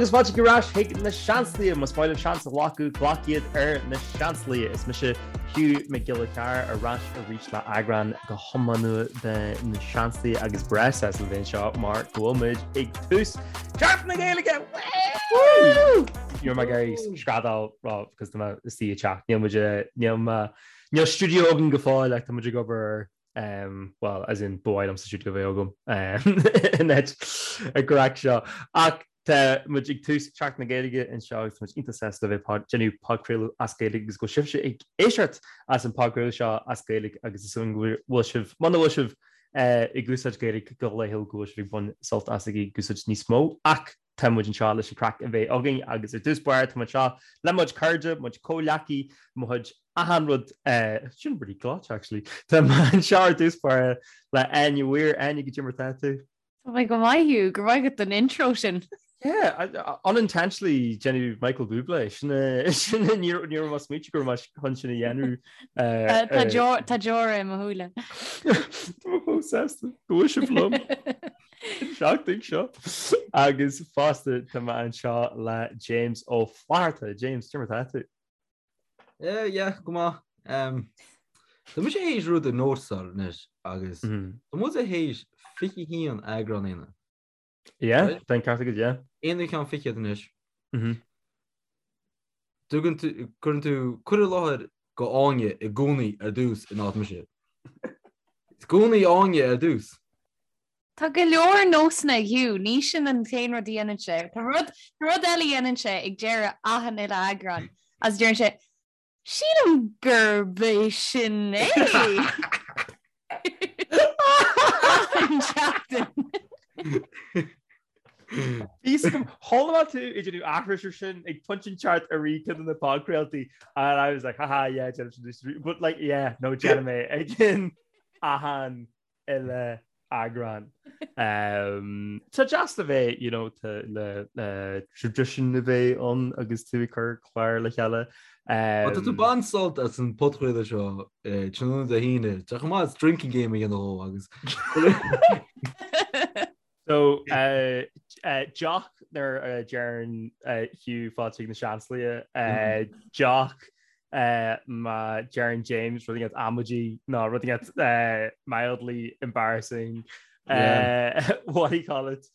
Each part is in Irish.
Agus fáilte ar ais chuig na Seansálaithe, más maith libh seans a ghlacadh, glac iad ar na Seansálaithe. Is mise Hugh Mac Giolla Chearra ar ais arís le eagrán go hiomlán nua de na Seansálaithe agus breá sásta le bheith anseo mar go bhfuil muid ag tús Seachtain na Gaeilge! Woo! Ní raibh mé ag iarraidh screadaíl because tá mé istigh i dteach. Níl muid níl mé níl stiúideo againn go fóill ach tá muid ag obair air. Um, well, as in ba mhaith liomsa stiúideo a bheith agam um, in áit an chraic seo. Ach tá muid ag tús Seachtain na Gaeilge anseo agus tá muid iontach sásta le bheith ag déanamh podchraoladh as Gaeilge agus go bhfuil sibhse ag éisteacht as an podchraoladh seo as Gaeilge agus is dóigh go bhfuil sibh muna bhfuil sibh eh, ag úsáid Gaeilge go laethúil go bhfuil sibh ag baint sult as ag úsáid níos mó ach tá muid anseo leis an craic a bheith againn agus ar dtús báire tá muid anseo le mo chuid cairde, mo chuid comhghleacaí, mo chuid achan rud, sin pretty gleoite actually. Tá mé anseo ar dtús báire le Áine Weir. Áine, goidé mar tá tú? Tá mé go maith Hugh, go raibh maith agat don intro sin. Yeah, unintentionally déanamh Michael Bublé, sin sin ní raibh mé ag smaointiú go raibh mé chun sin a dhéanamh. Tá deora i mo shúile. Tá mé chomh sásta go bhfuil sibh liom. An seachtain seo agus fosta tá mé anseo le James Ó Flatharta. James, cad é mar tá tú? Yeah, yeah, go maith. Um, tá mise théis rud a nótáil anois agus mm-hmm. tá muid théis 21 eagrán a dhéanamh. Yeah, tá an ceart agat, yeah. Aon cheann fichead anois. Mm-hmm. Tugann tú, cuireann tú cur i láthair go Áine i gcónaí ar dtús in áit mise. I gcónaí Áine ar dtús. Tá go leor nósanna ag Hugh, ní sin an t-aon rud a dhéanann sé. Tá rud, tá rud eile a dhéanann sé ag deireadh achan uile eagrán agus deireann sé, Sílim gurb é sin é! Achan seachtain. Bhí fhios agam, chuala mé tú ag déanamh aithris ar sin ag pointe inteacht i rith ceann de na podchraoltaí and I was like, haha, yeah, déanaim sin, but like, yeah, no, déanaim é ag achan uile eagrán. Tá deas le bheith, you know, le le tradition a bheith ann agus tú ag cur clár le chéile. Tá tú ag baint sult as an podchraoladh seo tráthnóna Dé hAoine, tá chomh maith drinking game a dhéanamh dhó agus. So, deoch nuair a deireann Hugh fáilte chuig na Seansálaithe, deoch má deireann James rud inteacht amaidí nó rud inteacht mildly embarrassing, what do you call it,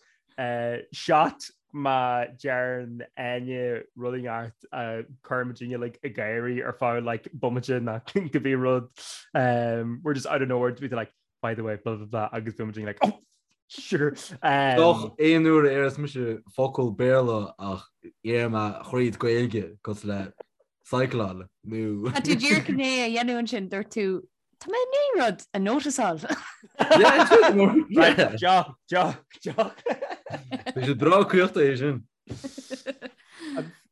shot má deireann Áine rud inteacht a chuireann muidinne like ag gáirí ar feadh like bomaite nó cibé rud, we're just out of nowhere to be like by the way, blah blah blah agus bíonn muid like oh sure. Um, Doch aon uair a déarfas mise focal Béarla ach deir mé thríd Gaeilge cosúil le cycleáil nó. Tá tú díreach i ndiaidh a dhéanamh ansin, dúirt tú Tá mé i ndiaidh rud a noticeáil. Right, deoch, deoch, deoch. Bhí sé breá caochta é sin.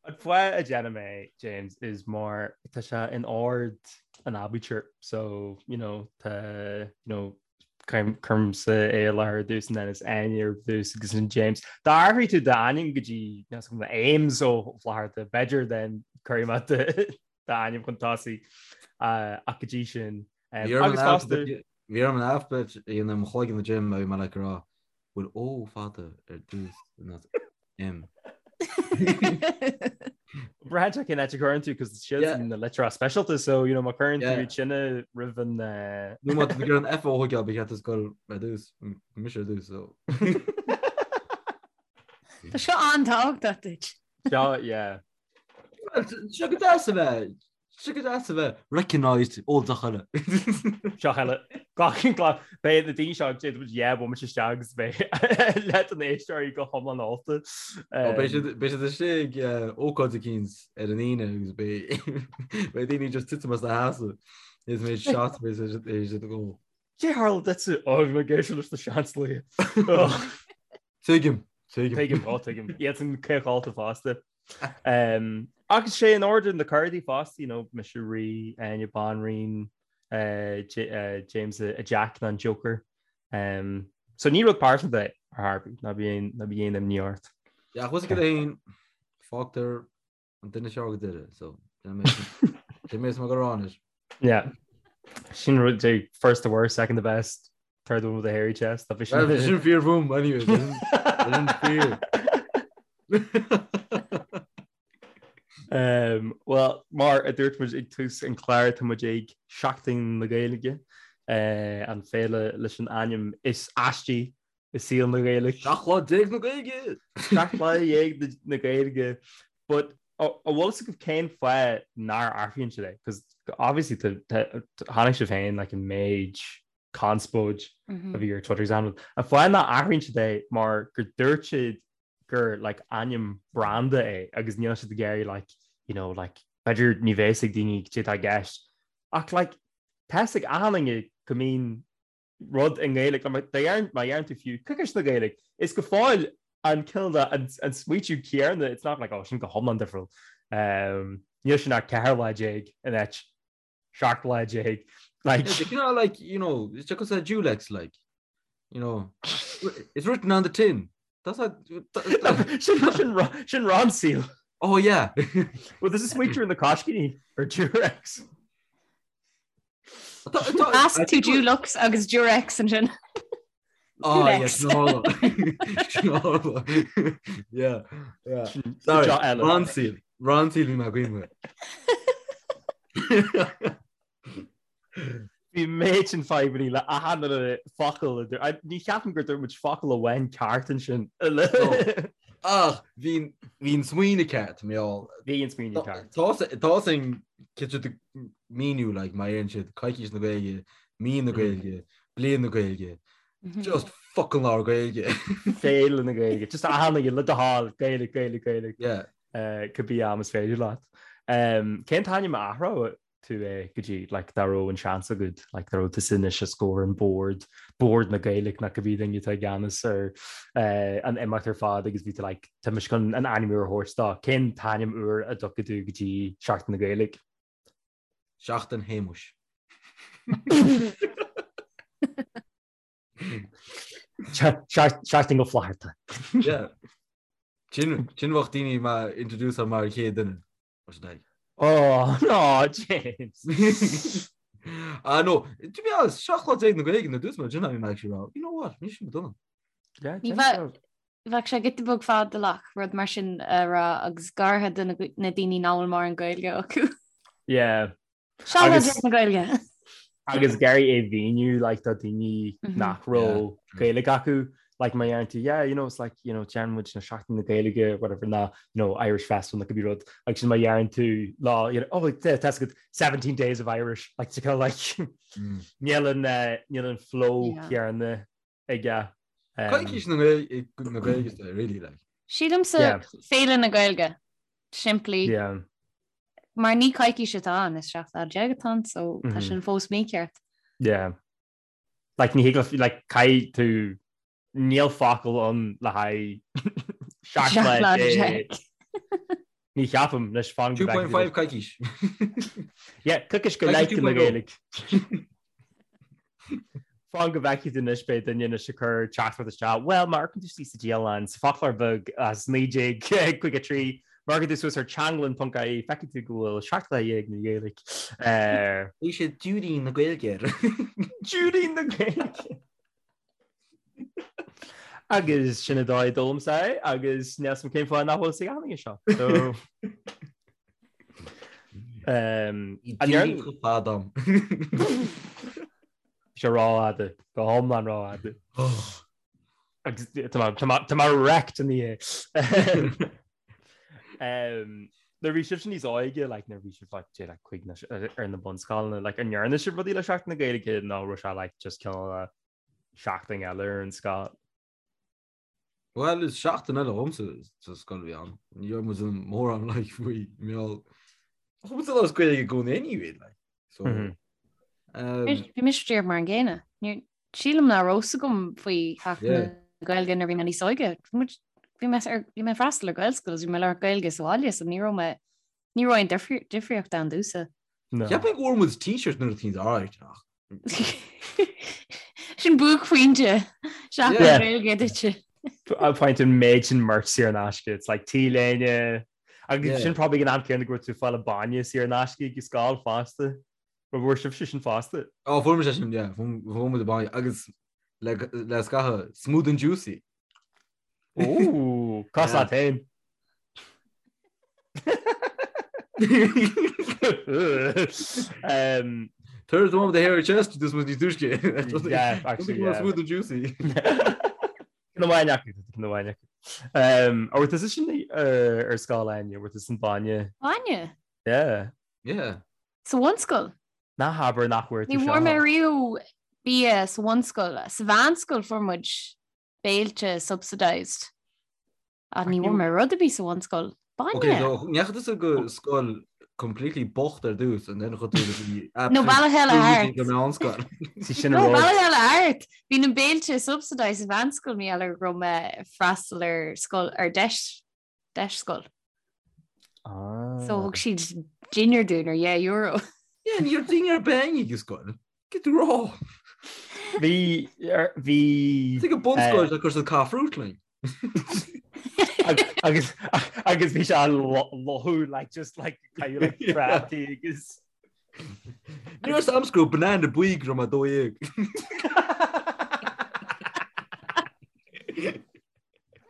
An fáth a déanaim é, James, is mar tá sé in ord an aibítir so, you know, tá, you know, cuirimse é i láthair ar dtús and then is Áine ar dtús agus ansin James. Dá athraigh tú d'ainm go dtí Ames Ó Flatharta, b'fhéidir then cuirfidh mé d'ainm chun tosaigh ach go dtí sin. Agus fosta. Bhí orm an alphabet a dhéanamh i mo chloigeann a Jim a bhí mé like ag rá bhfuil O fada ar dtús not M. Braitheann sé cén áit a chuireann tú cos siad na litreacha speisialta so you know má chuireann tú iad sin roimh an Nó má tá tú ag iarraidh an F a thógáil ba cheart duit dul ar dtús mise ar dtús so. Tá seo an-tábhachtach duit. Seo yeah. Seo go deas a bheith Seo go deas a bheith recognized ó deoch eile. Deoch eile. Glac glac beidh na daoine seo ag déanamh yeah bomaite isteach agus beidh leath de na éisteoirí go hiomlán ólta. Ó beidh siad beidh siad istigh ag ócáid eicínt ar an Aoine agus beidh beidh daoine just titim as a sheasamh is méid shot beidh siad beidh siad ag ól. Cé tharla duitse? Ó bhí mé ag éisteacht leis na Seansálaithe. Tuigim, tuigim. Tuigim, ó tuigim. Iad san caochálta fosta. Um, agus sé in ord na cárdaí fosta, you know, mise rí, Áine banríon, uh, J, uh, James a, a Jack ná an Joker. Um, so ní rud pearsanta é ar chor ar bith, ná bí ná bí aon imní ort. Yeah, ach go féin fágtar an duine seo go deireadh, so sin mé go ráis. Yeah. Sin rud é first the worst, second the best, third one with a hairy chest. Tá sin sin fíor fúm anyway. Sin fíor. Um, well, mar a dúirt muid ag tús an chláir tá muid ag Seachtain na Gaeilge, uh, an féile leis an ainm is aistí i saol na Gaeilge. 17 lá na Gaeilge! 17 lá na Gaeilge. But an bhfuil fhios agaibh cén fáth nár athraíonn siad é? Because obviously chonaic sibh féin like an méid conspóid a bhí ar Twitter example. An fáth nach athraíonn siad é mar gur dúirt siad gur like ainm branda é agus níl siad ag iarraidh like you know like b'fhéidir ní bheidh fhios ag daoine cad é atá i gceist. Ach like tá fhios ag achan duine go mbíonn rud i nGaeilge, má deireann tú fiú coicís na Gaeilge, is go fóill an cineál de an smaoitiú céanna, it's not like oh sin go hiomlán difriúil. Níl sin ach 14 lá in áit 17 lá. Like, yeah, you know, like, you know, it's just a Durex, like, you know, it's written on the tin. That's a, sin sin Ronseal. Oh yeah. Well, there's a smaoitiú na coiscíní ar Durex. Measc tú Dulux agus Durex ansin. Oh, yes, no. Yeah, yeah. Sorry, Ronseal. Ronseal bhí mé ag cuimhneamh. Bhí méid sin fadhbanna le achan uile focal. Ní cheapaim gur dúirt muid focal amháin ceart ansin. Ach bhí an smaoineamh ceart, mé all. Bhí an smaoineamh ceart. Tá sin cinnte míniú like má deireann siad coicís na Gaeilge, mí na Gaeilge, bliain na Gaeilge, just fucking labhair Gaeilge. Féile na Gaeilge, just achan duine le do thoil, Gaeilge, Gaeilge, Gaeilge. Yeah. Cibé am is féidir leat. Cén t-ainm a athródh tú é go dtí like dá raibh an seans agat like dá raibh tusa anois os comhair an bord, Bord na Gaeilge nó cibé duine atá i gceannas ar an imeacht ar fad agus bhí tú like tá mise chun an ainm úr a thabhairt dó. Cén t-ainm úr a dtiocfaidh tú go dtí Seachtain na Gaeilge? Seachtain Shéamuis. Seachtain Ó Flatharta. Yeah. Sin sin bheadh daoine mé introduce mar an chéad duine. Oh, no, James. Ah, no, to be honest, 17 lá na Gaeilge na dús mar sin I'm actually wrong. You know what? Ní sin dona. Yeah, Ní bheadh bheadh sé giota beag fadalach rud mar sin a rá agus go háirithe do na na daoine nach bhfuil mórán Gaeilge acu. Yeah. 17 lá na Gaeilge. Agus ag iarraidh é a mhíniú like do daoine nach raibh Gaeilge acu like má deireann tú yeah you know it's like you know déanann muid na Seachtain na Gaeilge whatever ná you know Irish Festival nó cibé rud agus sin má deireann tú lá you know oh tá a fhios agat 17 days of Irish like to kind of like níl an eh, níl an flow céanna aige. Coicís na Gaeilge really like. Sílimse Féile na Gaeilge simplí. Yeah. Mar ní coicís atá ann is 17 lá atá ann so tá sin fós mícheart. Yeah. Like ní thig like caithfidh tú níl focal ann le haghaidh 17 lá. Ní cheapaim leis fan 2.5 coicís. Yeah, coicís go leith na Gaeilge. Fan go bhfeicfidh tú anois beidh duine anois ag cur teachtaireacht isteach, Bhuel, má amharcann tú síos sa dialann, sa foclóir beag as 1953, má amharcann tú suas ar teanglann.ie, feicfidh tú go bhfuil 17 lá na Gaeilge. Bhí sé Judy na Gaeilge air. Judy na Gaeilge! Agus sin an dóigh a d'fhoghlaimse é agus níl a fhios agam cén fáth nach bhfuil fhios ag achan duine seo. So, um, an ndéarfainn chomh fada am. Sé rófhada, go hiomlán rófhada. Agus tá mé wrecked in the Um, nuair a bhí sibhse níos óige, like, nuair a bhí sibh like, like, cuig ar na bunscoileanna, like, an ndearna sibh rudaí le Seachtain na Gaeilge nó raibh sé like, just cineál seachtain eile ar an scoil? Well, is seachtain eile dhomsa sa scoil a bhí ann. Ní raibh muid in mórán like, faoi mheall. Chuaigh muid ag labhairt Gaeilge i gcónaí anyway, like. So, mm -hmm. um, Bhí mise díreach mar an gcéanna. Sílim nach raibh fhios agam faoi Sheachtain na Gaeilge nuair a bhí mé níos óige. Bhí mé bhí mé ag freastal ar Gaelscoil agus bhí mé ag labhairt Gaeilge sa bhaile so ní raibh mé ní raibh aon difríocht ann domhsa. Cheapfainn go bhfuair muid t-shirt nuair a bhí áit ach. Sin buaicphointe Seachtain na Gaeilge duitse. Point an méid sin merch saor in aisce. It's like T-léine agus sin probably an am céanna go raibh tú ag fáil bainne saor in aisce ag scoil fosta. An bhfuair sibhse sin fosta? Ó, fuair muid sin, yeah, fuair muid bainne agus le le scaitheamh smooth and juicy. Ó, cás leat féin. Um, Turns the one with the hairy chest, this was níos túisce. Yeah, actually, yeah. Smooth and juicy. Ceann amháin acu, ceann amháin acu. Um, An bhfuair tusa sin ar scoil Áine, an bhfuair tusa an bainne? Bainne? Yeah. Yeah. Sa bhunscoil? Ná habair nach bhfuair tú Ní seo. bhfuair mé riamh bia sa bhunscoil. Sa mheánscoil fuair muid béilte subsidised. Ach ní bhfuair mé rud ar bith sa bhunscoil. Bainne! Ok, so ndeachaigh tusa go scoil completely bocht ar dtús and then chuaigh tú go dtí No, bealach eile thart. go meánscoil. Sí sin No, an rud. bealach eile thart! Bhí na béilte subsidised sa mheánscoil mar gheall ar go raibh mé ag freastal ar scoil ar deis deis scoil. Ah. So thug siad dinnéar dúinn ar dheich euro. Yeah, ní raibh dinnéar ar bith againn ag scoil. Cad tú rá. Bhí bhí Is ag an bunscoil a chuir siad caith fruit linn. Agus agus bhí sé lothú like just like kind of like prátaí agus Ní raibh am go raibh banana buí go raibh mé 12.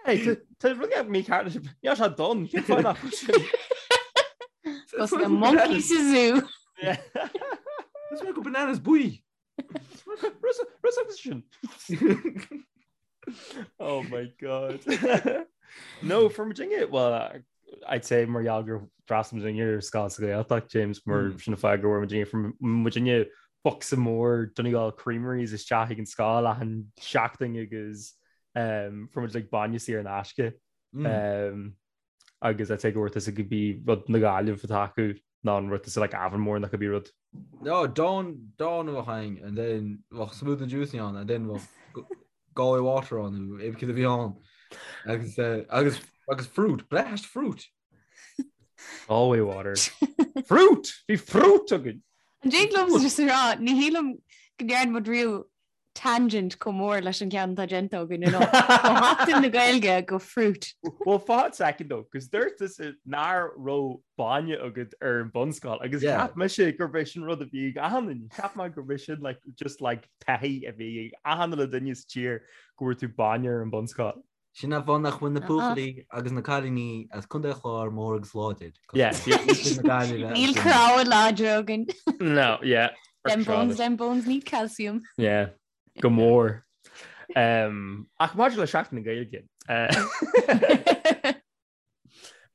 Hey, tá rud mícheart leis Níl sé donn, cén fáth nach bhfuil sin? Cos na monkeys sa zoo. Is mé go bananas buí. Rud agus sin. Oh my god. No, fuair muidinne, well, I'd say mar gheall gur d'fhreastail muidinne ar scoil sa Ghaeltacht, James, mar Mm. sin an fáth go bhfuair muidinne, fuair muidinne bocsa mór Donegal Creameries isteach ag an scoil achan seachtain agus um, fuair muid like bainne saor in aisce. Mm. Um, agus I'd say go bhfuair tusa cibé rud na Gaillimhe atá acu ná an rud tusa like Avonmore nó cibé rud. No, Dawn Dawn a bheadh ann and then bheadh Smooth and Juicy ann and then bheadh Galway Water ann nó cibé cad a bhí ann. Agus eh, agus agus fruit, blast fruit. Galway Water. Fruit! Bhí fruit againn! An dtig liom just a rá, ní shílim go ndearna muid riamh tangent chomh mór leis an ceann atá déanta againn inniu. Ó Sheachtain na Gaeilge go fruit. Well fan second though, cos dúirt tusa nach raibh bainne agat ar an bunscoil agus Yeah. cheap mise gurb é sin rud a bhí ag achan duine. Cheap mé gurb é sin like, just like taithí a bhí ag achan uile duine sa tír go bhfuair tú bainne ar an bunscoil. Sin an fáth nach bhfuil na Uh-uh. buachaillí agus na cailíní as Contae an Chláir mór agus láidir. Yeah. Níl cnámha láidre againn. No, yeah. Them bones, them bones need calcium. Yeah, go mór. Um, ach maidir le Seachtain na Gaeilge. Uh,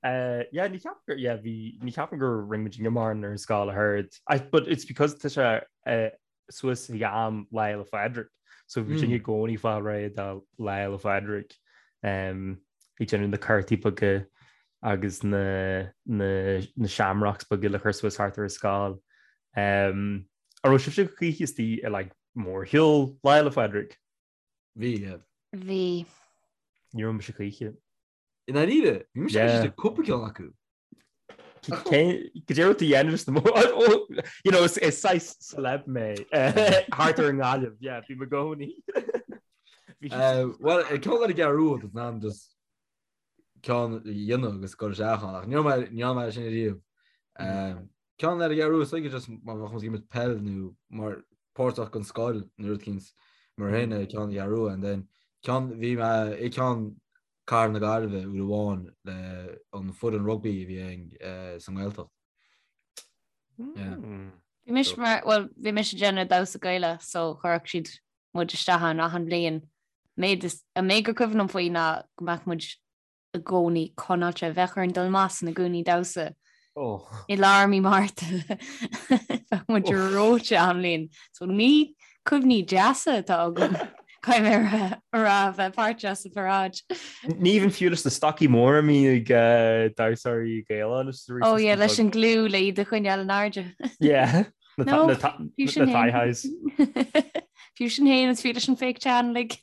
uh, yeah, ní cheapaim gur yeah, bhí ní cheapaim gur rinne muid mórán ar an scoil a heard. I, but it's because tá sé uh, suas ag am Lá Fhéile Phádraig. So bhí muidinne i gcónaí ag fáil réidh do Lá Fhéile Phádraig um, ag déanamh na cártaí beaga agus na, na, na shamrocks beaga le cur suas thart ar an scoil. Um, an raibh sibhse choíche istigh i like, mórshiúl Lá Fhéile Phádraig? Bhí, yeah. Bhí. Ní raibh mise choíche. I ndáiríre, bhí mise Yeah. ag cúpla ceann acu. Cad é rud a dhéanamh sna mó you know, is is saghas celeb mé thart ar an nGaillimh, yeah, bhí mé i gcónaí. Bhí Eh, Well, ceann ar an gCeathrú Rua, tá an just ceann a dhéanamh agus cur isteach ann, ach ní raibh mé ní raibh mé sin riamh. Eh, Ceann ar an gCeathrú Rua, is dóigh just má bheadh muid ag imirt peil nó mar páirteach den scoil nó rud eicínt mar shin eh, ceann an Cheathrú Rua, and then ceann bhí mé i ceann Cathair na Gaillimhe uair amháin le an foireann rugbaí a bhí againn sa nGaeltacht. Yeah. Hmm. Bhí mise mar, well, bhí mise ag déanamh damhsa Gaelach so chuirfeadh siad muid isteach ann achan bhliain. Méid is, an méid gur cuimhin liom faoi ná go mbeadh muid i gcónaí conáilte, bheadh orainn dul amach sna gúnaí damhsa Oh. i lár mí Márta. Bheadh muid reoite achan bhliain. So ní cuimhní deasa atá agam caithfidh mé a rá bheith páirteach sa pharáid. Ní even fiú leis na stocaí móra a mbíonn ag damhsóirí Gaelacha anois arís. Oh yeah, leis an gliú le iad a choinneáil in airde. Yeah. Na No, na ta- fiú na sin thigh féin. highs. Fiú sin féin is fiú leis an fake tan like.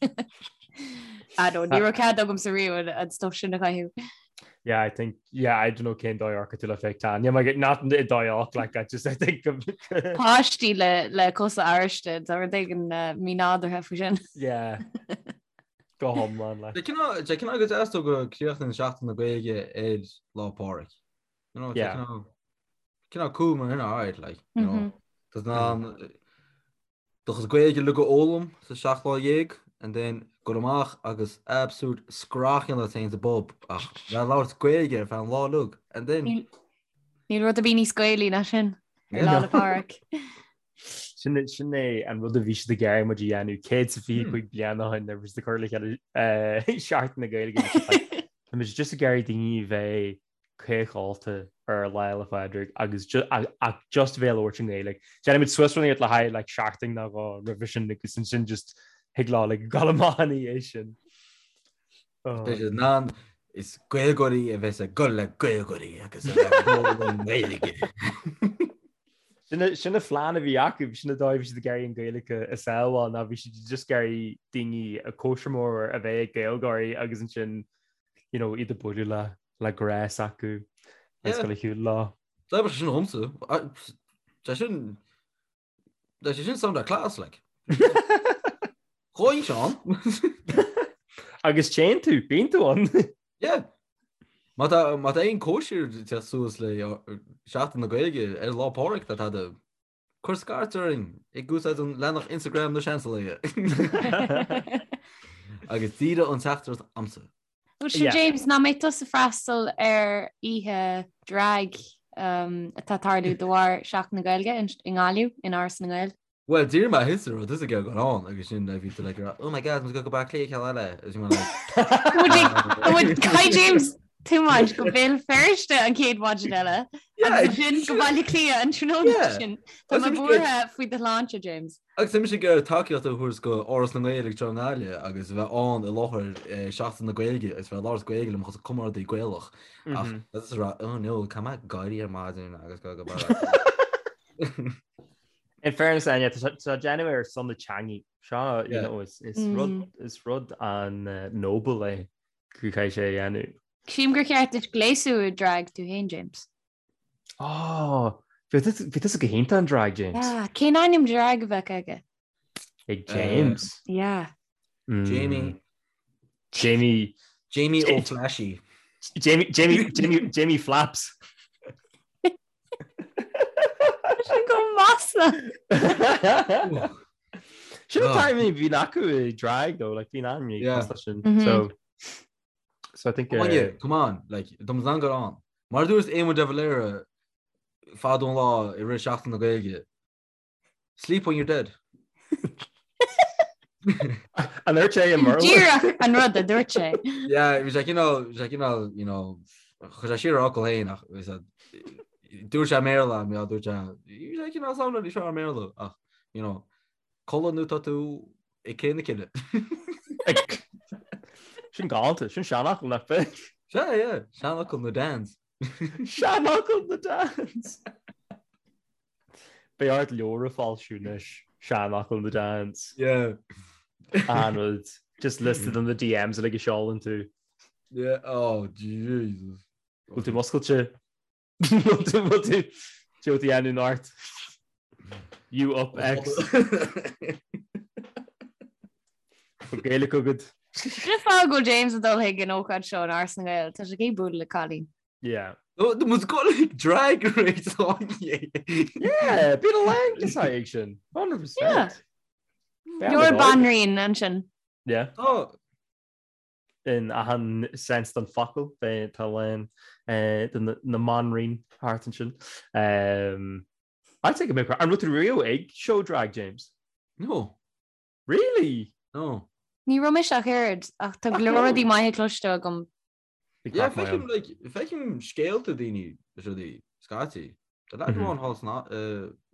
I don't ní raibh cead agamsa riamh an- an stuff sin a chaitheamh. Yeah, I think yeah, I don't know cén dóigh a tú le fake tan. Yeah, my not i dóigh like I just I think of Páistí le le cosa ariste tá rud éigin uh, mínádúrtha faoi sin. Yeah. Go hiomlán le. Tá cineál go deas though go críochnaíonn Seachtain na Gaeilge ar Lá Pádraig. You know, Yeah. cineál cineál cool mar sin, alright, like, you know. Mhm. Tá an Do chuid Gaeilge uilig a fhoghlaim sa 17 lá and then goil amach agus absolute scrach a dhéanamh ort féin sa bpub ach bheith ag labhairt Gaeilge ar feadh an lá uilig. And then... Níl rud ar bith níos Gaelaí ná sin ar Lá 'le Pádraig. Sin sin é an rud a bhí siad ag iarraidh muid a dhéanamh 125 bliain ó shin nuair a bhí siad ag cur le chéile Seachtain na Gaeilge. Tá muid just ag iarraidh daoine a bheith caochálta ar Lá 'le Pádraig agus ach just bheith ag labhairt i nGaeilge. Déanfaimid suas rud le haghaidh like seachtain nó dhó roimhe sin agus ansin just thig leo like gabháil amach ina dhiaidh sin. Beidh siad in ann is Gaeilgeoirí a bheas ag gol le Gaeilgeoirí agus a bheith ag gol i nGaeilge. Sin an phlean a bhí acu, sin an dóigh a bhí siad ag iarraidh an Ghaeilge a sábháil ná bhí siad just ag iarraidh daoine a cóisir mór a bheith ag Gaeilgeoirí agus ansin you know, iad ag bualadh le le grá s'acu agus dul ar shiúl leo. D'oibrigh sé sin dhomsa. Sé sin Tá sé sin sound class like. Chuaigh Seán. Agus téann tú, bíonn tú ann. Yeah. Má tá má tá aon cóisir te suas le Seachtain na Gaeilge ar Lá Pádraig tá tada cuir scairt orainn ag úsáid an leathanach Instagram na Seansálaithe. Agus díreach an teachtaireacht a'msa. Bhuel sin James, nach mbeidh tusa ag freastal ar oíche drag atá ag tarlú de bharr Seachtain na Gaeilge i nGaillimh, in Áras na nGael? Bhuel, d'iarr mé thusa raibh tusa ag gabháil ann agus sin bhí tú like oh my god, muid ag go Baile Átha Cliath ceann eile agus bhí mé like Caithfidh James tiomáint go Béal Feirste an chéad mhaidin eile agus ansin go Baile Átha Cliath an tráthnóna sin. Tá mé buartha faoi do shláinte, James. Agus tá mise ag iarraidh tacaíocht a thabhairt go Áras na nGael ag seo i nGaillimh agus a bheith ann i láthair Seachtain na Gaeilge agus bheith ag labhairt Gaeilge le mo chuid comrádaí Gaelach ach is rá oh no caithfidh mé éirí ar maidin agus go go Baile In fairness Áine, tá sé déanamh ar son na teangaidh. Seo you know, is, is rud, is rud an-noble é go caithfidh sé a dhéanamh. Sílim gur cheart duit gléasadh i drag tú féin, James. Oh, bhí tusa go hiontach in drag, James. Yeah, cén ainm drag a bheadh aige? Ag James. Yeah. Jamie. Jamie. Jamie Ó Flashy. Jamie, Jamie, Jamie, Jamie Flaps. Sin go maslach. Sin an t-ainm a bhíonn acu i drag though, like bíonn ainm yeah. sin. So So I think Come on, yeah, come on, like dom zan gur an. Mar dúirt Éamon de Valera fadó an lá i rith Seachtain na Gaeilge. Sleep when you're dead. An dúirt sé i mBéarla? Díreach an rud a dúirt sé. Yeah, bhí sé cineál, bhí sé cineál, you know, chuir sé siar a fhocal féin ach bhí sé, dúirt sé i mBéarla, mé dúirt sé, bhí sé cineál samhla níos fearr i mBéarla ach, you know, Codladh nó tá tú ag cré na cille. Sin galánta, sin seanfhocal nach b'ea? Sea, yeah, seanfhocal na Dans. Seanfhocal na Dans! Beidh ort leabhar a fhoilsiú anois, seanfhocal na Dans. Yeah. An rud, just listed on the DMs uilig a seolann tú. Yeah, oh Jesus. Bhfuil tú muscailte? Bhfuil tú bhfuil tú tú ag déanamh ort? You up X. Bhfuil Gaeilge agat? Sin an fáth go bhfuil James ag dul chuig an ócáid seo in Áras na nGael, tá sé ag bualadh le cailín. Yeah. No, muid ag dul chuig Drag Race Áine. Yeah, bíonn a lán de ag sin. 100%. Yeah. Leor banríon ansin. Yeah. Oh, in achan sense den focal, beidh tá a lán de na mbanríon thart ansin. I'd say go mbeadh an raibh tú riamh ag show drag, James? No. Really? No. Ní raibh mise ach oiread, ach tá go leor rudaí maithe cloiste agam. Yeah, feicim, like, feicim scéalta daoine is rudaí scaití. Tá leaid amháin thall san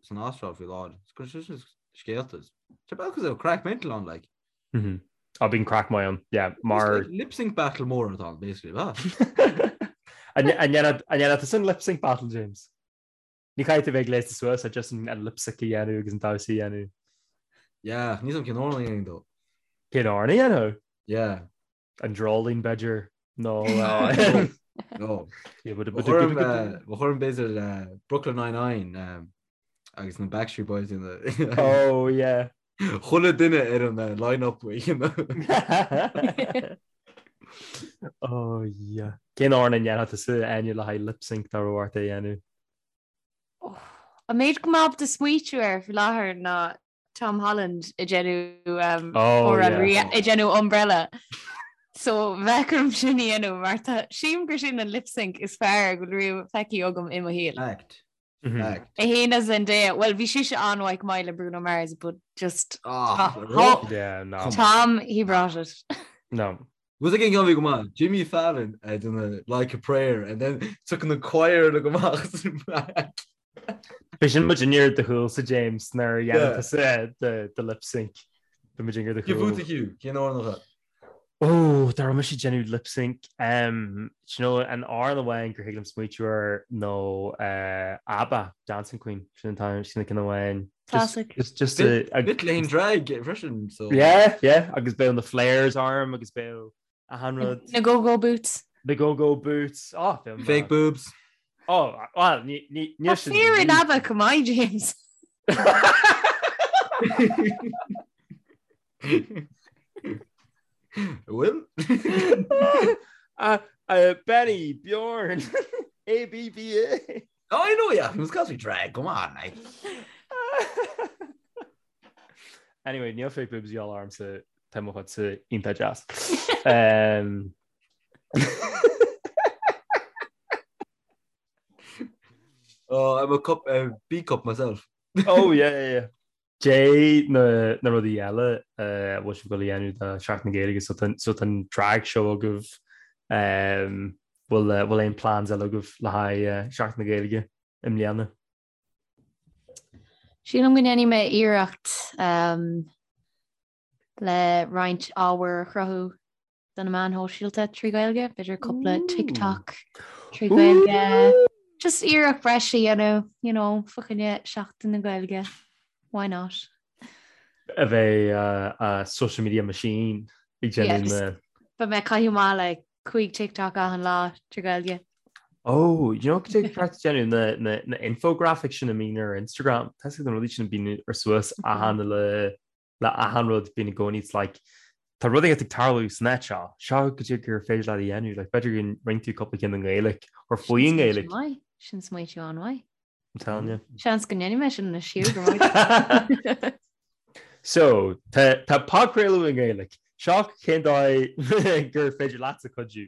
san Astráil faoi láthair. Is cuireann sé scéalta. Tá bealach go raibh craic mental ann, like. Á bíonn craic maith ann, yeah, mar. Lip sync battle mór atá ann, basically, ba. An ndéanfadh tusa an lip sync battle, James? Ní chaithfidh tú bheith gléasta suas, just an lip sync a dhéanamh agus an damhsa a dhéanamh. Yeah, níl 's a'm cén amhrán a dhéanfainn though. Cén amhrán a dhéanfadh? Yeah. An Dreoilín, b'fhéidir, nó. No. Ba chóir b'fhéidir Brooklyn Nine-Nine agus na Backstreet Boys in the. Oh, yeah. Chuile duine ar an line-up you know. Oh, yeah. Cén amhrán a ndéanfadh tusa Áine le haghaidh lip sync dá raibh ort é a dhéanamh? An méid go mbeadh ábalta smaoitiú air faoi láthair ná Tom Holland ag déanamh oh, ag déanamh Umbrella. So bheadh orm sin a dhéanamh mar tá sílim gur sin an lip sync is fearr go bhfuil riamh feicthe agam i mo shaol. Fact. Fact. É fhéin is Zendaya, well bhí sise an-mhaith go maith le Bruno Mars but just Ah, Yeah, no. Tom, he brought it. No. Was again gonna be go maith Jimmy Fallon ag déanamh Like a Prayer and then took an choir le go amach. B'é sin muid ar do chúlsa James nuair a dhéanann tusa do lip sync. Bhí muid ar do Cé chúl. fút a Hugh? Cén amhrán atá? Ó, dá raibh mise ag déanamh lip sync. Um, do you know, an amhrán amháin gur thig liom smaoitiú air ná uh, ABBA, Dancing Queen. Sin an t-am, sin an ceann amháin. Just, Classic. just, just a, a, Bit lane drag freisin, so. Yeah, yeah, agus beidh na flares orm agus beidh achan rud. Na go-go boots. Na go-go boots. Oh, bheadh Fake boobs. Oh, well, ní, ní, ní Tá sin. fir in ABBA go maith, James. Bhfuil? Uh, uh, Benny, Bjorn, A B B A. Oh, I know, yeah. It was cause we drag. Come on, like. Anyway, níl fake boobs y'all ormsa tá mo chuidse iontach deas. Um, Oh, I'm a cup, a B cup myself. oh yeah, yeah, yeah. Cé na na rudaí eile a bhfuil sibh ag dul a dhéanamh do Seachtain na Gaeilge so tá so tá an drag show agaibh um, bhfuil eh, bhfuil aon plans eile agaibh le haghaidh eh, Seachtain na Gaeilge i mbliana? Sílim go ndéanfaidh mé iarracht um, le roinnt ábhair a chruthú do na meáin shóisialta trí Ghaeilge, b'fhéidir cúpla TikTok trí Ghaeilge. Just iarracht breise a dhéanamh, you know, fá choinne Seachtain na Gaeilge. Why not? A bheith a social media machine ag déanamh na... Beidh mé ag caitheamh amach le 5 TikTok achan lá trí Ghaeilge. Oh, you know cad é ceart déanamh na, na, na infographics sin a mbíonn ar Instagram. Tá na rudaí sin a bíonn ar suas achan le le achan rud bíonn i gcónaí it's like tá rud éigin ag tarlú san áit seo, seo cad é gur féidir leat a dhéanamh, like b'fhéidir go roinn tú cúpla ceann i nGaeilge or faoi Sin nGaeilge. smaoitiú maith. Sin smaoitiú an-mhaith. I'm telling you. Seans go ndéanfaidh mé sin anois Hugh, go raibh So, tá tá podchraoladh i nGaeilge. Seo cén dóigh gur féidir leatsa cuidiú.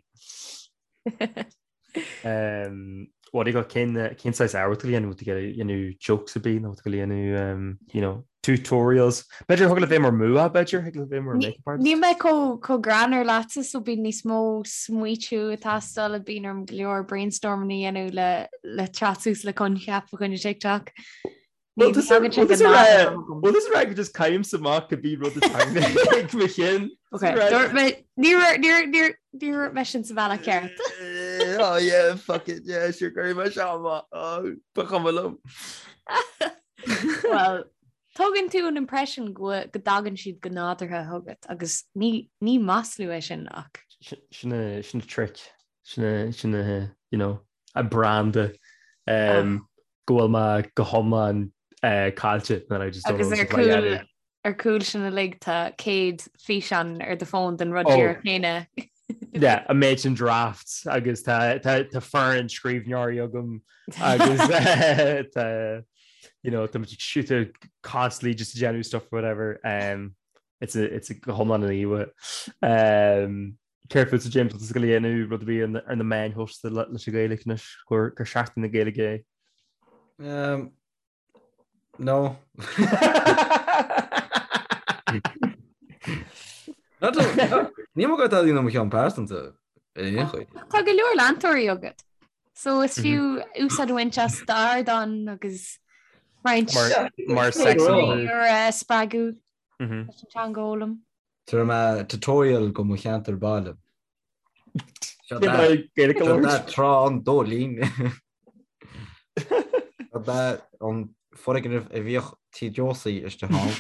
What do you got cén cén saghas ábhar tú dhéanamh tú dhéanamh jokes a bit nó tú dhéanamh you know tutorials. B'fhéidir thig leat bheith mar mua b'fhéidir thig leat bheith mar makeup artist. Níl mé chomh greannmhar leatsa so bíonn níos mó smaoitiú ag teastáil bíonn orm go leor brainstorming a dhéanamh le le teacht suas le coincheap fá choinne TikTok. Well this well this rag just caim amach go bí rud ag mo chinn. Ní raibh mé sin sa bhealach ceart. Oh yeah, fuck it, yeah, sure go raibh sé amach. Oh, ba chuma liom. Well, tugann tú an impression go go dtagann siad go nádúrtha chugat agus ní ní maslú é sin ach. Sin a sin a trick. Sin a sin a you know, a branda. Um, go bhfuil mé go hiomlán caillte and I just don't know Agus ar cúl ar cúl sin uilig tá 100 físeán ar do fón den rud díreach céanna. Yeah, a méid sin drafts agus tá tá tá foireann scríbhneoirí agam agus tá you know tá muid ag shoot constantly just déanamh stuff or whatever. Um, it's a it's a go hiomlán an íomha. Um, Céard fútsa James bhfuil tú ag dul a dhéanamh rud ar bith ar na meáin shóisialta leis an Ghaeilge anois gur gur Seachtain na Gaeilge é? Um, no. Ní mo go tá mo cheann pearsanta ar aon chaoi. Tá go leor leantóirí agat. So is fiú úsáid a bhaint as d'ardán agus roinnt Mar mar sex symbol. a spreagadh leis an teanga a fhoghlaim. Tabharfaidh mé tutorial go mo cheantar baile. Seo trá an Dóilín. Seo an foirgneamh a bhíodh Tí Josie istigh ann.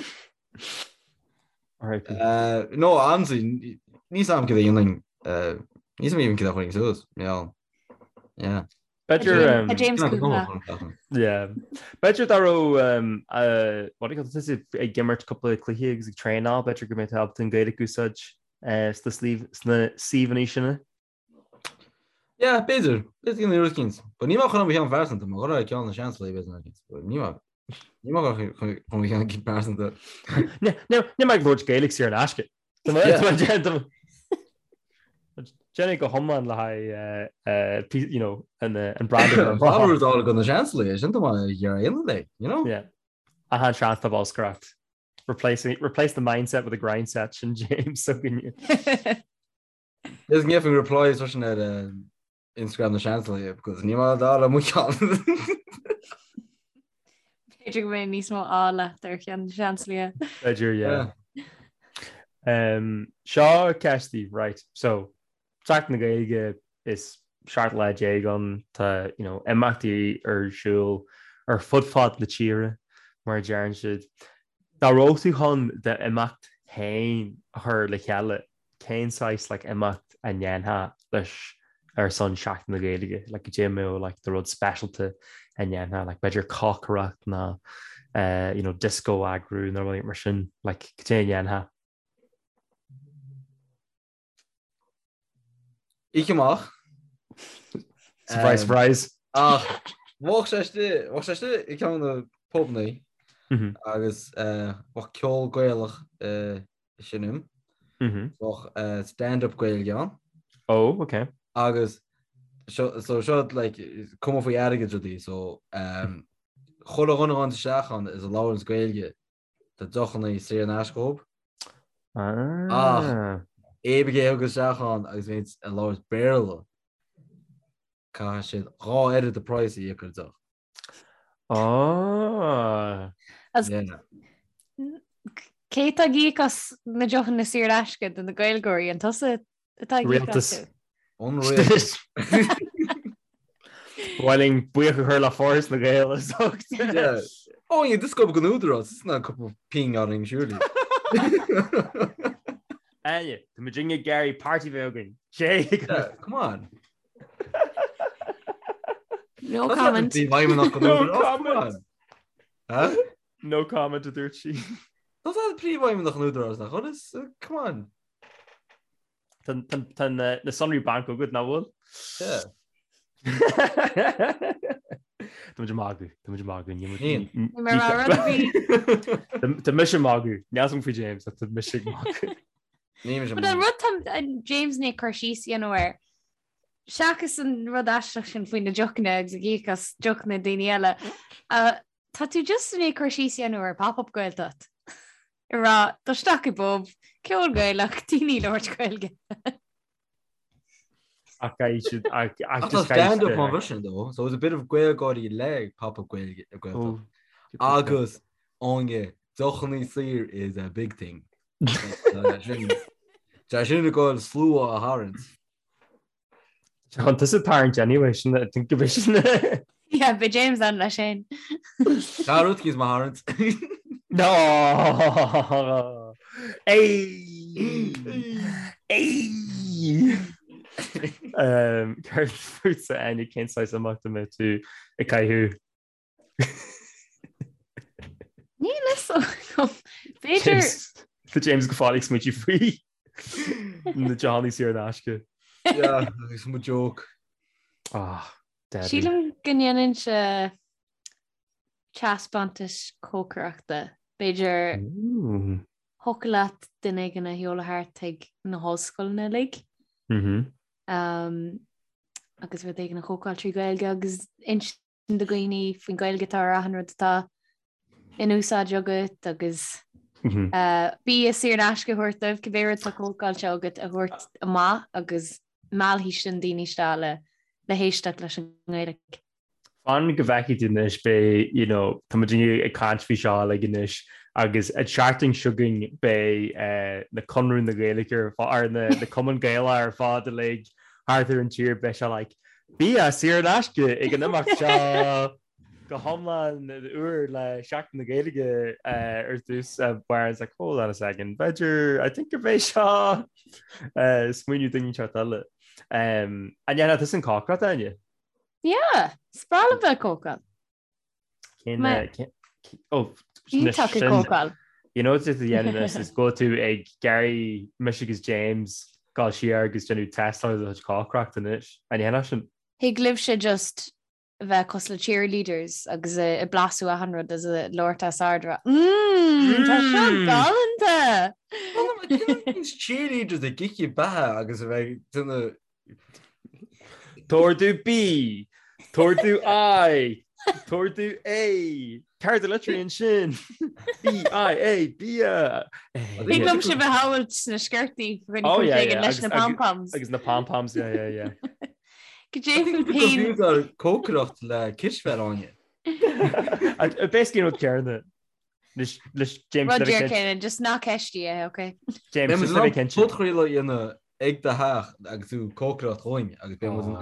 No, honestly, níl a fhios agam cad a dhéanfainn, níl a fhios agam even cad a chuirfinn suas, yeah. B'fhéidir Tá James cúpla. Yeah. B'fhéidir dá raibh what do you call it, tusa ag imirt cúpla cluiche agus ag traenáil, b'fhéidir go mbeidh tú ábalta an Ghaeilge a úsáid sna sna suíomhanna sin. Yeah, b'fhéidir. B'fhéidir go rud éicint. But ní maith chun mo cheann pearsanta, má chuir ceann na seans le b'fhéidir. But ní maith ní maith chun mo cheann pearsanta. Ní maith ag labhairt Gaeilge saor in aisce. Déan é go hiomlán le haghaidh you know, an an brand a bhí rud go na seanslaí, sin tá mar dhéanamh é, you know? Yeah. Achan seans tá bolscaireacht. Replacing, replace the mindset with a grind set sin James s'againne. Is gheobhainn replies freisin ar Instagram na Seansálaithe because ní mar dá le mo cheann. B'fhéidir go mbeidh níos mó ádh leat ar cheann na Seansálaithe. B'fhéidir, yeah. Um, seo ceist daoibh, right, so, Seachtain na Gaeilge is 17 lá ann, tá, you know, imeachtaí ar siúl ar fud fad na tíre, mar a deireann siad. Dá raibh tú chun d'imeacht féin a chur le chéile, cén saghas like imeacht a ndéanfá leis ar son Seachtain na Gaeilge, like goidé a mbeadh like do rud speisialta a ndéanfá, like b'fhéidir cócaireacht nó eh you know disco a eagrú nó rudaí mar sin, like goidé a ndéanfá. Oíche amach. Surprise, surprise. Ach bheadh sé istigh, bheadh sé istigh i gceann de na pubannaí agus bheadh ceol Gaelach ag seinm. Bheadh stand-up Gaeilge ann. Oh, ok. Agus so seo like cuma faoi airgead rudaí so um, chuile dhuine a ghabhann isteach ann is a labhranns Gaeilge tá deochanna saor in aisce dhób. Ah. Ach éinne a thigeas isteach ann agus bhíonns ag labhairt Béarla caithfidh siad dhá oiread de price a íoc ar deoch. Ah. Cé atá ag íoc as na deochanna saor in aisce do na Gaeilgeoirí an tusa atá ag íoc Rialtas. astu? An rialtas. Ba mhaith linn buíochas a chur le Foras na Gaeilge as ucht. Yeah. Oh, yeah, this go an údarás, it's not a couple of ping orainn, surely. Áine, tá muid ag iarraidh party bheith againn. Sé. Yeah, come on. No comment. No comment. No comment a dúirt sí. Tá príomhfheidhmeannach an Údarás nach bhfuil is come on. Tá na sonraí banc agat nach bhfuil? Yeah. Tá muid ag magadh, tá muid ag magadh. Níl. Tá mise ag magadh, níl a fhios agam faoi James, tá mise ag magadh. But an rud tá James i ndiaidh cur síos a dhéanamh air, seachas an rud aisteach sin faoi na deochanna agus ag íoc as deochanna daoine eile, tá tú just i ndiaidh cur síos a dhéanamh ar Pop-Up Gaeltacht. Ag rá, dul isteach i bpub, ceol Gaelach, daoine ag labhairt Gaeilge. Ach caithfidh siad, ach Ach tá just caithfidh stand-up siad- mar sin though, so it's a bit of GaelGáirí le Pop-Up Gaeilge Gaeltacht. Agus Áine, deochanna saor is a big thing. Tá sin ag goil slua a tharraingt. Chun tusa tarraingt anyway, sin I think go sin. Yeah, beidh James ann leis féin. Tá rud cíos má tharraingt. No! Ei! Ei! Um, Céard fútsa Áine cén saghas imeacht a mbeadh tú ag caitheamh? Níl a fhios agam. B'fhéidir Tá James go fóill ag smaointiú faoi na deochanna saor in aisce. Yeah, agus mo joke. Ah, deadly. Sílim go ndéanfainnse taispeántas cócaireachta. B'fhéidir Ooh. thiocfadh leat duine éigin a sheoladh thart chuig na hollscoileanna uilig. Mhm. Um, agus rud éigin a chócáil trí Ghaeilge agus insint do dhaoine faoin Ghaeilge atá ar achan rud atá in úsáid agat agus Mhm. uh, bia saor in aisce a thabhairt dóibh cibé rud atá cócáilte agat a thabhairt amach agus meallfaidh sin daoine isteach le le héisteacht leis an nGaeilge. Fan go bhfeicfidh tú anois beidh, you know, tá muid ag caint faoi seo uilig anois agus an tseachtain seo chugainn beidh eh, na Conradh na Gaeilge ar fad, ar na, na Cumann Gaelach ar fad uilig thart ar an tír beidh sé like bia saor in aisce ag an imeacht seo go hiomlán úr le Seachtain na Gaeilge eh, ar dtús uh, where it's like hold on a second b'fhéidir I think go mbeidh seo eh, smaoineamh duine inteacht eile. Um, an ndéanfá tusa an cócaireacht Áine? Yeah, is breá liom bheith ag cócáil. Cén Ma- eh, cén- oh, Iontach ag sin- cócáil. You know what a dhéanamh is go tú ag iarraidh mise agus James gabháil siar agus déanamh tástáil do chuid cócaireachta anois. An ndéanfá sin? Thig libhse just bheith cosúil le cheerleaders agus ag blasú achan rud is ag labhairt os ard rá Mmm, tá seo Mm. galánta! Cheerleaders ag ithe beatha agus a bheith ag déanamh T-ordú B, t-ordú I, t-ordú A, Céard a litríonn sin? B, I, A, bia! Thig liom sibh a shamhailt sna sciortaí faoi choinne cúis éigin leis na pom-poms. Agus na pom-poms, yeah, yeah, yeah. Cad é fút féin? Bhí cócaireacht le cispheil Áine. Basically an rud céanna. Leis James Rud díreach céanna, just ná ceistigh é, ok? James, just le bheith cinnte. Podchraoladh a dhéanamh ag do theach agus tú cócaireacht dhúinn agus beidh muid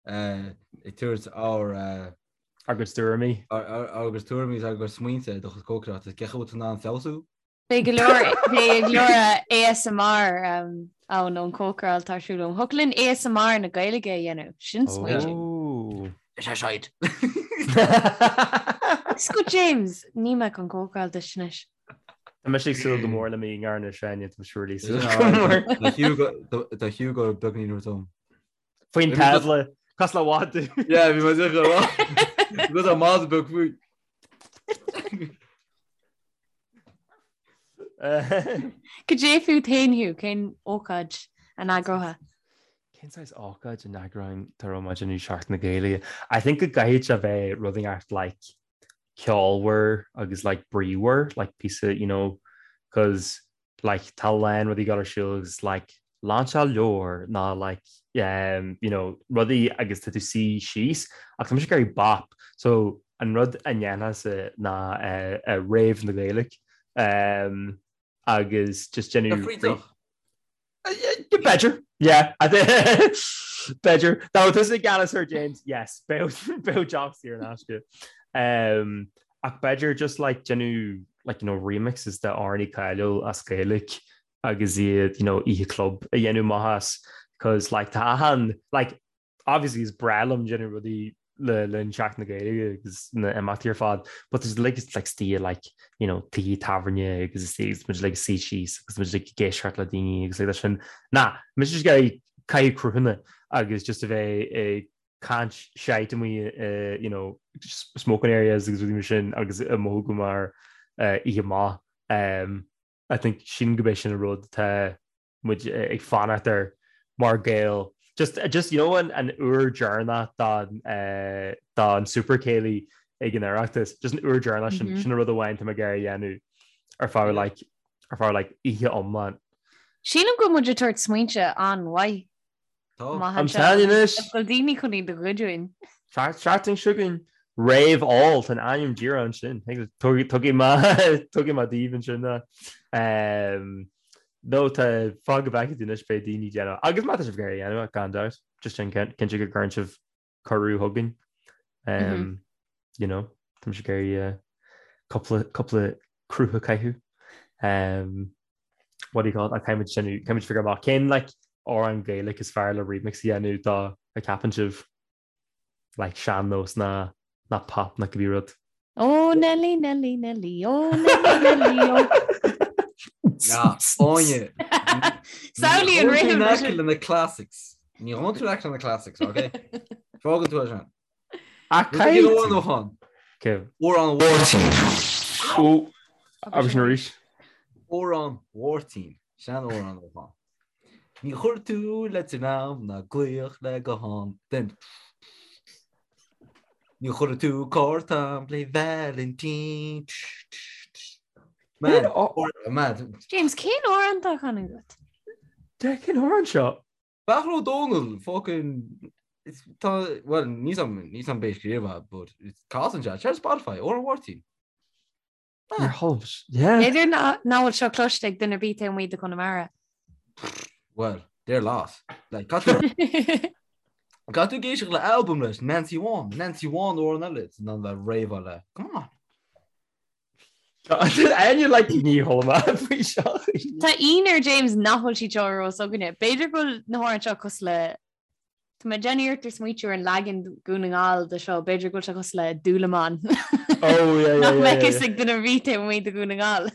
ag tabhairt ár Ár gcuid tuairimí. Ár gcuid tuairimí agus ár gcuid smaointe ar do chuid cócaireachta. Cén chaoi a bhfuil tú in ann feabhsú? Beidh go leor beidh go leor ASMR ann ón cócaráil atá ar siúl agam. Thiocfadh linn ASMR na Gaeilge a dhéanamh. Sin smaointe. Ó. Is é shite. Is go James, níl mé chun cócaráil duit anois. Tá mise ag súil go mór le m'ingear anois, Áine, tá mise really súil go mór. Tá Hugo beagnín rud ann. Faoin tábla, cosúil le madadh. Yeah, bhí mé ag rá. Go tá madadh beag faoi. Cad é fút féin Hugh, cén ócáid a n-eagrófá? Cén saghas ócáid a n-eagróinn dá raibh mé ag déanamh Seachtain na Gaeilge? I think go gcaithfidh sé bheith rud inteacht like ceolmhar agus like bríomhar, like píosa, you know, cause like tá a lán rudaí ag dul ar siúl agus like lainseáil leabhar ná like um, you know, rudaí agus tá tú suí síos ach tá mise ag iarraidh bop so an rud a ndéanfainnse ná uh, uh, rave na Gaeilge um, agus just déanamh B'fhéidir yeah b'fhéidir dá raibh tusa i gceannas air James yes bheadh deoch saor in aisce um, ach b'fhéidir just like déanamh like you know remixes de amhráin cáiliúil as Gaeilge agus iad you know oíche club a dhéanamh amach as cause like tá achan like obviously is breá liom déanamh rudaí le linn Seachtain na Gaeilge agus na imeachtaí ar fad but there's like it's like istigh like you know tithe tábhairne agus is is muid like suí síos agus muid like ag éisteacht le daoine agus like sin na mise just ag iarraidh caitheamh cruthanna agus just a bheith ag caint shite amuigh uh, you know smoking areas agus rudaí mar sin agus ag mothú go mar uh, oíche maith um, I think sin go b'é sin an rud atá muid ag fanacht air mar Gael. Just, just you know an, an uair deireanach don, uh, don Super Céilí ag an Oireachtas, just an uair deireanach sin, mm -hmm. sin an rud amháin tá mé ag iarraidh a dhéanamh ar feadh like, ar feadh like, oíche iomlán. Sílim go bhfuil muid ag tabhairt smaointe an-mhaith. Tá. I'm telling you anois. Bhfuil daoine chun iad a ghoid uainn. Seachtain seo chugainn Rave All tá an ainm díreach ansin. Tugaim tugaim daoibh ansin ná. Nó tá fág go bhfeicfidh tú anois beidh daoine ag déanamh agus má tá sibh ag iarraidh a dhéanamh gan dabht just sin cinnte go gcuireann sibh cuireadh chugainn. You know, tá mise ag iarraidh cúpla cúpla cruth a chaitheamh. What do you call it? Caithfidh muid sin caithfidh muid figure amach cén like amhrán Gaeilge is fearr le remix a dhéanamh dá a ceapann sibh like sean-nós ná ná pop ná cibé rud. Ó Nelly Nelly Nelly ó Nelly Nelly ó. Ná, Áine. Samhlaigh an rithim. Ní aice le na classics. Ní ghabhann tú aice le na classics, ok? Fágann tú é sin. Ach Rud éigin amháin ó chán. Amhrán Mháirtín. Ó, agus sin arís. Amhrán Mháirtín. Sean-amhrán ó chán. Ní chuir tú leitir am ná glaoch le guthán den. Ní chuir tú cárta le Vailintín. Man, man. James, cén amhrán atá á chanadh agat? De cén amhrán seo? Beairtle Ó Domhnaill, fucking tá well níl 's a'm níl 's a'm b'é a scríobh é but casann sé ar Spotify Amhrán Mháirtín. Ar tholbh yeah. B'fhéidir nach bhfuil seo cloiste ag duine ar bith taobh amuigh de Chonamara. Well, they're lost. Like caithfidh tú ag éisteacht le album leis Nancy One, Nancy One amhrán eile in ann bheith réabha le. Come on. Áine like ní chuala mé faoi seo. Tá ionadh ar James nach bhfuil siad seo ar eolas againne. B'fhéidir go bhfuil na hamhráin seo cosúil le Tá mé ag déanamh iarracht ar smaoitiú ar an leagan Dhún na nGall de seo, b'fhéidir go bhfuil sé cosúil le Dúlamán. Oh yeah yeah Nach yeah mbeadh yeah. fhios ag duine ar bith taobh amuigh de Dhún na nGall.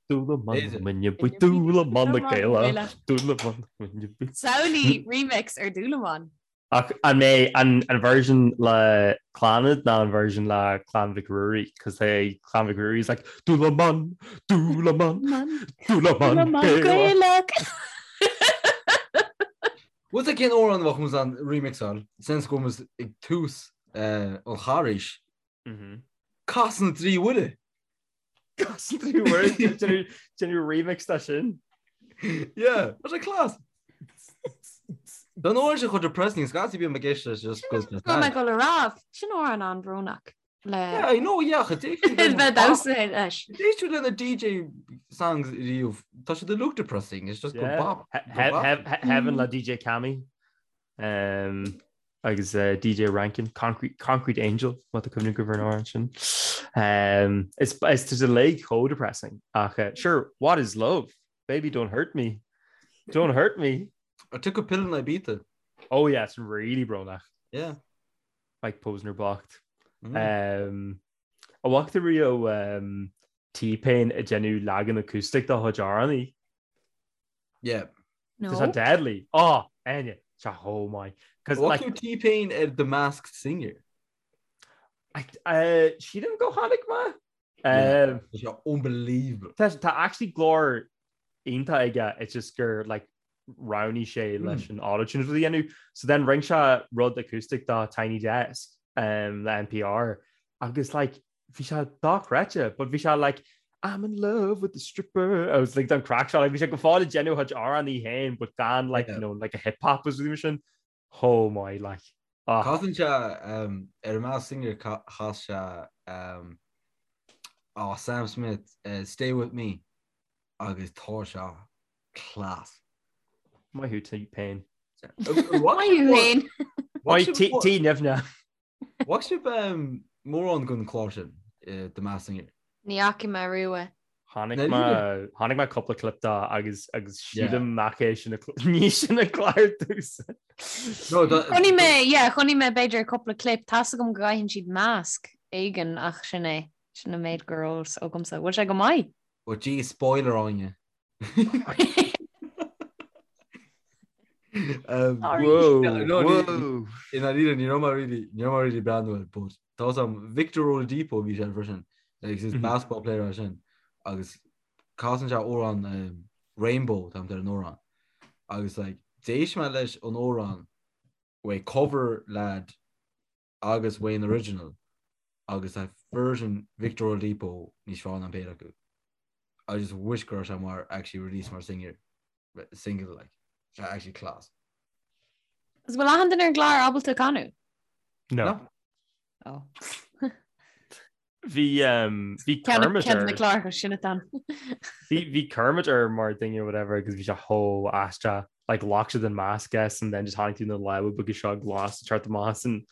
Dúlamán muine buí Dúlamán na Gaelach Dúlamán muine buí. Samhlaigh remix ar Dúlamán. Ach an mbeidh an version le Clannad ná an version le Clann Mhic Ruairí? Cos tá Clann Mhic Ruairí is like Dúlamán, Dúlamán, Dúlamán Gaelach. Bhfuil a fhios agat cén amhrán a bheadh muid in ann remixáil since go bhfuil muid ag tús an Charghais? Casadh na dTrí Mhuire. Casadh na dTrí Mhuire déanamh remix de sin. Yeah, tá sé class. Don uair sin chomh depressing, scaití bím ag éisteacht leis just because Go mbeidh go le rá, sin amhrán an-bhrónach le Yeah, I know, yeah, ach bheith damhsa leis. D'éist tú lena DJ songs riamh, tá siad uilig depressing, it's just go Yeah. bop. He- go bop. he- Heaven le DJ Cammy. Um, agus uh, DJ Rankin, Concrete, Concrete Angel, má tá cuimhne agaibh ar an amhrán sin. Um, is is tá siad uilig chomh depressing ach uh, sure, what is love? Baby, don't hurt me. Don't hurt me. I took a pill in Ibiza. Oh yeah, it's really brónach. Yeah. Mike Posner bocht. Mm. Um, an bhfaca tú riamh um, T-Pain ag déanamh leagan acoustic dá chuid amhránaí. Yeah. No. Tá sé deadly. Oh, Áine, tá chomh maith. Cos What like, tú T-Pain ar The Masked Singer? I, uh, sílim go chonaic mé. Um, Tá sé unbelievable. Tá tá actually glór iontach aige, it's just gur like roghnaigh sé leis an autotune a dhéanamh. So then rinne sé rud acoustic do Tiny Desk um, le NPR agus like bhí sé dochreidte, but bhí sé like I'm in love with the stripper. I was like don craic seo, like bhí sé go fóill ag déanamh a chuid amhránaí féin, but gan like, you know, like a hip hop was rud sin. Oh my like. Ah. Casann sé um, ar an Masked Singer chas sé um, oh, Sam Smith uh, Stay With Me agus tá sé class. Maith thú T-Pain. Maith thú féin. Maith T nimhne. Bhfaca sibh mórán den chlár sin, The Masked Singer? Ní fhaca mé riamh é. Chonaic mé chonaic mé cúpla clip de agus agus sílim nach é sin ní sin an clár domhsa. Chonaic mé, yeah, chonaic mé b'fhéidir cúpla clip, tá's agam go gcaitheann siad masc éigin ach sin é, sin an méid go raibh fhios agamsa. Bhfuil sé go maith? Oh gee, spoiler Áine. Whoa, whoa. I ndáiríre ní raibh mé really ní raibh mé really breathnú air but tá sam Victor Oladipo bhí sé freisin like is basketball player é sin agus casann sé amhrán um, Rainbow tá ar an amhrán agus like d'éist mé leis an amhrán uaidh cover lad agus uaidh an original agus tá version Victor Oladipo níos fearr ná an péire acu. I just wish go raibh sé mar actually release mar singer single like sé actually class. Is bhfuil achan duine ar an gclár ábalta canadh? No. Oh. Bhí um, bhí Kermit Ceann na ar cláracha sin atá. Bhí bhí Kermit ar mar duine or whatever agus bhí sé chomh aisteach like ghlac siad an mask as and then just tháinig tú na lámha beaga seo glas ag teacht amach as an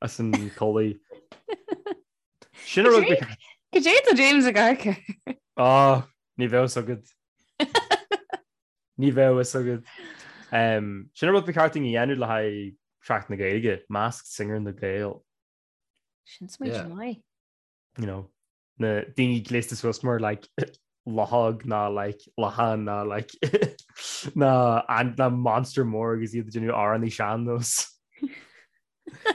as an culaith. Sin a rud Cad é tá James ag amharc air. Ah, ní bheadh fhios agat. Ní bheadh fhios agat. Um, sin a rud ba cheart dúinn a dhéanamh le haghaidh Seachtain na Gaeilge, Masked Singer na Gael. Sin smaointe maith. You know, na daoine gléasta suas mar like luchóg ná like lachán ná like ná an ná monster mór agus iad ag déanamh amhránaí sean-nós.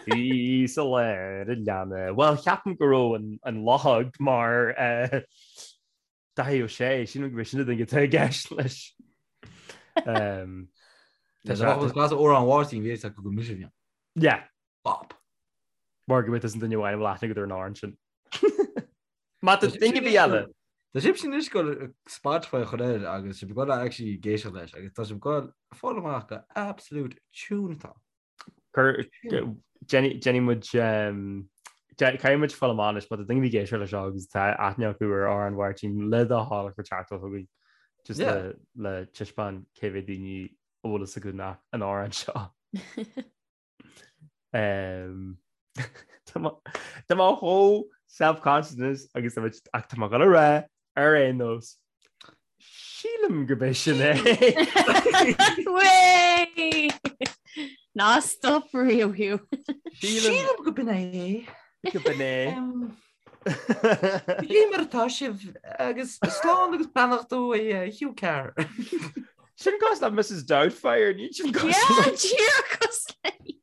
Bhí sa lár a leanna. Well, ceapaim go raibh an, an luchóg mar uh, Daithí Ó Sé, sílim go b'é sin an duine atá i gceist leis. Um, Tá sé class amhrán Mháirtín bhí acu go mise bhí. Yeah. Bop. Mar go bhfuil an duine amháin a bhfuil aithne agat ar an amhrán sin. Má tá duine ar bith eile. Tá sibh sin anois ag dul Spotify a chur air agus sibh ag dul actually ag éisteacht leis agus tá sibh ag dul fáil amach gur absolute tune atá. Cur déanfaidh muid caithfidh muid fáil amach anois má tá duine ar bith ag éisteacht leis seo agus tá aithne acu ar amhrán Mháirtín le do thoil cuir teachtaireacht chugainn just le le taispeáint cé mhéad daoine a bhfuil fhios acu an amhrán seo. Tá mé chomh self-conscious agus ach tá mé ag dul a rá ar aon nós. Sílim gurb é sin é. Way! Ná stop riamh Hugh. Sílim go b'in é. Go b'in é. Cé mar atá sibh agus slán agus beannacht ó Hugh Carr. Sin cosúil le Mrs Doubtfire, ní sin cosúil. Yeah, díreach cosúil léi.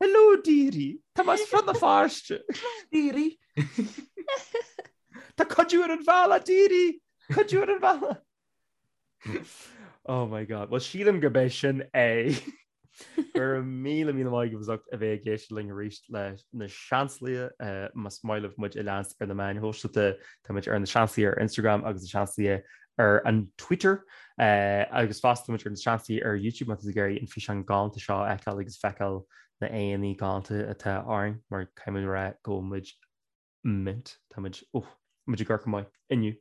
Hello dearie, Tá mé as Rann na Feirste. Dearie. Tá cuidiú ar an bhealach dearie, cuidiú ar an bhealach. Oh my God. Well sílim gurb é sin é. Go raibh míle míle maith agaibh as ucht a bheith ag éisteacht linn arís le Na Seansálaithe. Más maith libh muid a leanstan ar na meáin shóisialta, tá muid ar Na Seansálaithe ar Instagram agus Na Seansálaithe ar an Twitter. Agus fosta tá muid ar Na Seansálaithe ar YouTube má tá tú ag iarraidh an físeán galánta seo a fheiceáil agus feiceáil na aghaidheanna galánta atá orainn mar caithfidh muid a rá go bhfuil muid mint. Tá muid, oh, muid ag amharc go maith inniu.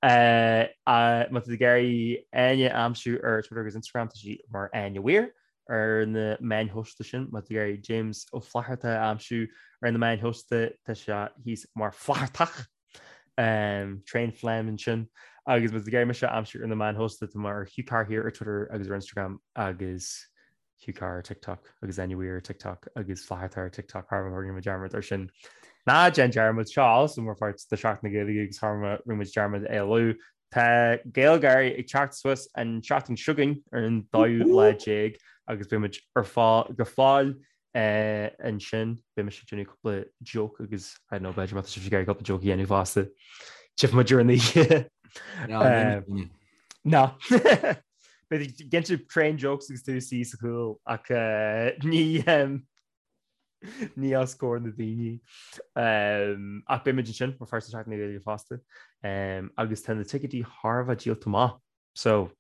Má tá tú ag iarraidh Áine a aimsiú ar Twitter agus Instagram, tá sí mar Áine Weir ar na meáin shóisialta sin. Má tá tú ag iarraidh James Ó Flatharta a aimsiú ar na meáin shóisialta, tá sé thíos mar Flathartach. Um, Train Phlegm ansin. Agus má tá tú ag iarraidh mise a aimsiú ar na meáin shóisialta, tá mé ar Hugh Carr Here ar Twitter agus ar Instagram agus Hugh Carr ar TikTok agus Áine Weir ar TikTok agus Flatharta ar TikTok thar rinne muid dearmad ar sin. Ná déan dearmad seo also mar pháirt de Seachtain na Gaeilge agus thar rinne muid dearmad é a lua. Tá GaelGáirí ag teacht suas an tseachtain seo chugainn ar an dóú lá déag agus beidh muid ar fáil go fóill eh, ansin. Beidh mise ag déanamh cúpla joke agus I don't know b'fhéidir má tá sibh ag iarraidh cúpla joke a dhéanamh fosta. Tchífidh muid ar an oíche. Eh, Ná. Beidh cinnte train jokes agus tú suí sa chúl ach ní ní os comhair na daoine. Ach beidh muid ansin mar pháirt de Seachtain na Gaeilge fosta. Agus tá na ticéidí thar a bheith díolta amach. So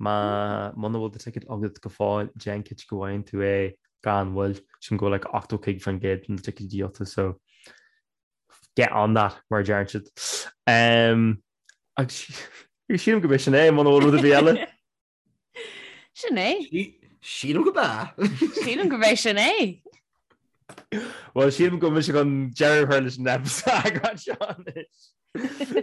má muna bhfuil do ticéad agat go fóill, déan cinnte go bhfaigheann tú é gan mhoill. Sílim go bhfuil like 85% de na ticéidí díolta so get on that mar a deireann siad. Agus sílim go b'é sin é muna bhfuil rud ar bith eile. Sin é. Sílim go b'ea. Sílim go b'é sin é. Well sílim go mise chun deireadh a chur leis an eagrán seo anois.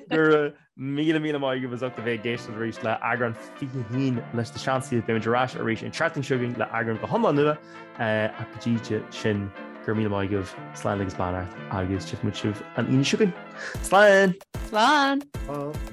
Go raibh míle míle maith agaibh as ucht a bheith ag éisteacht arís le eagrán 21 leis na Seansálaithe. Beimid ar ais arís an tseachtain seo chugainn le eagrán go hiomlán nua ach go dtí sin go raibh míle maith agaibh, slán agus beannacht agus tchífidh muid sibh an Aoine seo chugainn. Slán! Slán! Slán!